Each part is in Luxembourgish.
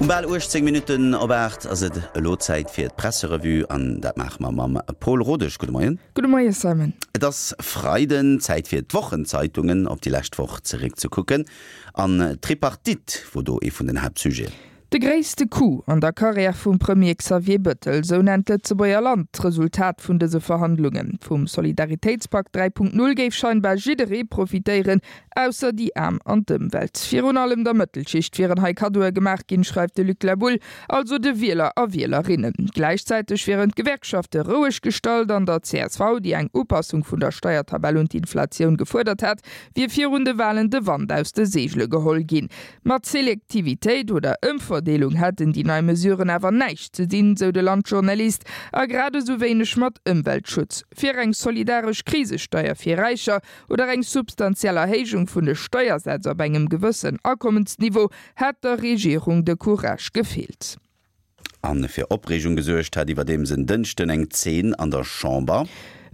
Um bal 18 Minutten op 8 ass et elo Zäit fir d'Presserevue an dat maache mer mam Paul Rodesch. Gudde Moien. Gudde Moie Simon. Et ass Freiden, Zäit fir d'Wochenzeitungen op déi lescht Woch zeréckzekucken. An d'Tripartite wor do ee vun den Haaptsujeten. De gréisste Coup an der Karriär vum Premier Xavier Bëttel, sou nennt d'Lëtzebuerger Land d'Resultat vun dëse Verhandlungen. Vum Solidaritéitspak 3.0 géif scheinbar jidderee profitéieren, ausser déi Aarm an d'Ëmwelt. Virun allem der Mëttelschicht wieren hei Kaddoe gemaach ginn, schreift de Luc Laboule, also de Wieler a Wielerinnen. Gläichzäiteg wieren d'Gewerkschafte roueg gestallt an der csv, déi eng Upassung vun der Steiertabell un d'Inflatioun gefuerdert hat, wier virun de Walen de Wand aus de Seegele geholl ginn. Mat Selektivitéit oder Ëmverdeelung hätten déi nei Mesuren awer näischt ze dinn, sou de Landjournalist, a grad esou wéineg mat Ëmweltschutz. Fir eng solidaresch Krisesteier fir Räicher oder eng substantiell Erhéijung vun de Steiersätz op engem gewëssen Akommensniveau hätt der Regierung de Courage gefeelt. A fir Opreegung gesuergt hat iwwerdeems en Dënschden eng Zeen an der Chamber.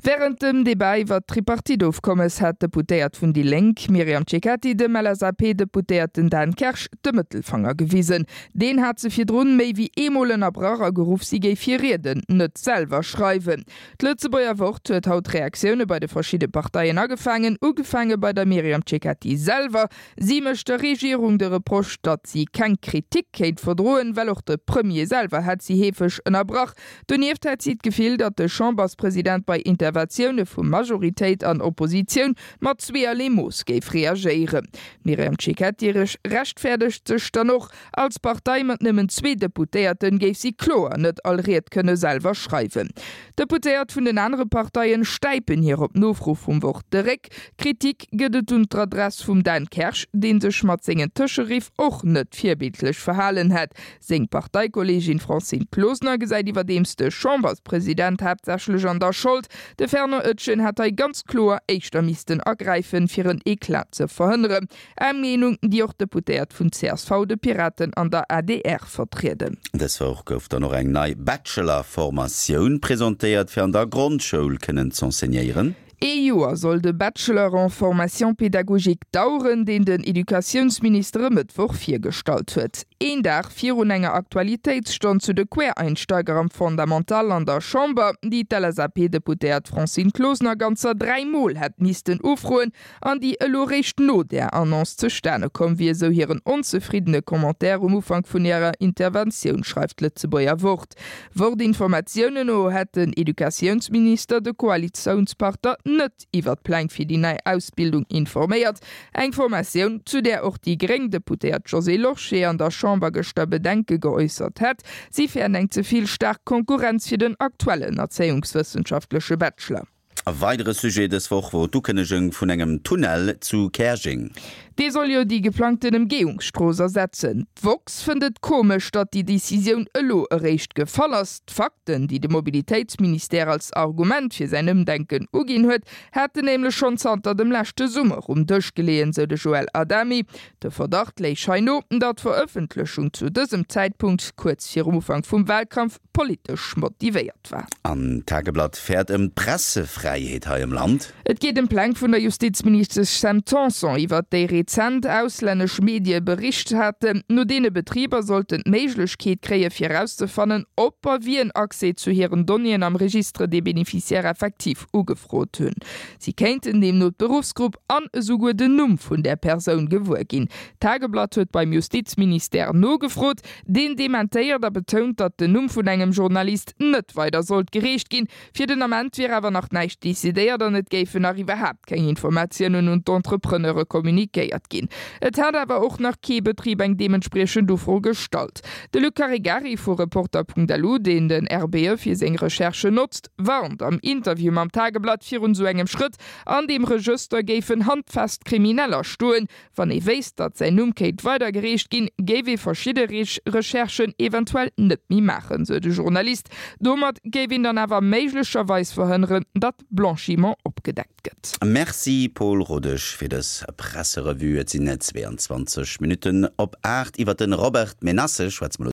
Wärend dem Debat iwwer d'Tripartite-Ofkommes hat d'Deputéiert vun déi Lénk Myriam Cecchetti dem LSAP-Deputéierten Dan Kersch de Mëttelfanger gewisen. Deen hat se virdrun méi wéi eemol ënnerbrach a geruff, si géif hir Rieden net selwer schreiwen. D'Lëtzebuerger Wort huet haut Reaktioune bei de verschidde Parteien agefaangen, ugefaange bei der Myriam Cecchetti selwer. Si mécht der Regierung de Reproche, datt si keng Kritik kéint verdroen, well och de Premier selwer hätt si heefeg ënnerbrach. Donieft hätt si d'Gefill, datt de Chamberspresident bei Interventioune vu Majoritéit an Oppositioun mat zweeërlee Mooss géif reagéieren. D'Myriam Cecchetti rechtfäerdegt sech dann och, Als Partei mat nëmmen zwee Deputéierten géif si kloer net all Ried kënne selwer schreiwen. D'Deputéiert vun den anere Parteien stäipen hir op Nofro vum Wort de Réck. Kritik gëtt et un d'Adress vum Dan Kersch, dee sech mat sengen Tëscheriff och net virbildlech verhalen hätt. Seng Parteikolleegin Francine Closener gesäit iwwerdeems de Chamberspresident haaptsächlech an der Schold. De Fernand Etgen hätt hei ganz kloer éischter missten agräifen, fir en Eclat ze verhënneren. Eng Meenung, déi och d'Deputéiert vun csv, de Piraten an der adr vertrieden. Dës Woch gouf dann och eng nei Bachelor-Formatioun presentéiert, fir an der Grondschoul kënnen z'enseignéieren. Ee Joer soll de Bachelor en formation pédagogique daueren, deen den Educatiounsminister e Mëttwoch virgestallt huet. Een Dag virun enger Aktualitéitsstonn zu de Quereinsteiger am Fondamental an der Chamber, déi d'LSAP-Deputéiert Francine Closener ganzer 3 Mol hätt missten ufroen, an déi elo réischt no där Annonce zustane komm wier, sou hiren onzefriddene Commentaire um Ufank vun hirer Interventioun, schreift d'Lëtzebuerger Wort. Wort-Informatiounen no hätt den Educatiounsminister de Koalitiounspartner net iwwer d'Pläng fir déi nei Ausbildung informéiert. Eng Formatioun, zu där och déi gréng Deputéiert Josée Lorsché an der Chamber gëschter Bedenke geäussert hätt. Si fäert eng ze vill staark Konkurrenz fir den aktuellen erzéiungswëssenschaftleche Bachelor. E weidere Sujet dës Woch wor d'Ukënnegung vun engem Tunnel zu Käerjeng. Dee soll jo déi geplangten Emgehungsstrooss ersetzen. D'woxx fënnt et komesch, datt déi Decisioun elo eréischt gefall ass. D'Fakten, déi de Mobilitéitsministère als Argument fir säin Ëmdenken uginn huet, hätten nämlech schonn zanter dem leschte Summer um Dësch geleeën, sou de Joël Adami. De Verdacht léich hei no, datt d'Verëffentlechung zu dësem Zäitpunkt, kuerz virum Ufank vum Walkampf, politesch motivéiert war. An d'Tageblatt fäert ëm d'Pressefräiheet hei am Land. Et geet ëm Pläng vun der Justizministesch Sam Tanson, iwwert déi rezent auslännesch Medie bericht haten. No deene Betriber sollten d'Méiglechkeet kréie fir erauszefannen, ob a wien Accès zu hiren Donnéeën am Registre des bénéficiaires effectifs ugefrot hunn. Si kéinten deemno d'Beruffsgrupp an esouguer den Numm vun där Persoun gewuer ginn. D'Tageblatt huet beim Justizministère nogefrot. Deen dementéiert a betount, datt den Numm vun engem Journalist net weider sollt gereecht ginn. Fir den Ament wier awer nach näischt decidéiert an et géifen nach iwwerhaapt keng Informatiounen un d'Entrepreneure kommunikéiert ginn. Et hätt awer och nach kee Betrib eng deementspriechend Ufro gestallt. De Luc Caregari vu Reporter.lu, deen den RBE fir seng Recherchen notzt, warnt am Interview mam Tageblatt virun esou engem Schrëtt, An deem Regëster géifen handfest Krimineller stoen, Wann ee wéisst, datt säin Numm kéint weidergereecht ginn, géif ee verschidde Recherchen eventuell net méi maachen, sou de Journalist. Domat géif een dann awer méiglecherweis verhënneren, datt Blanchiment opgedeckt gëtt. Merci Paul Rodesch fir dës Presserevue. Et sinn 22 Minutten op 8. Iwwer de Robert Menasse schwätze mer elo.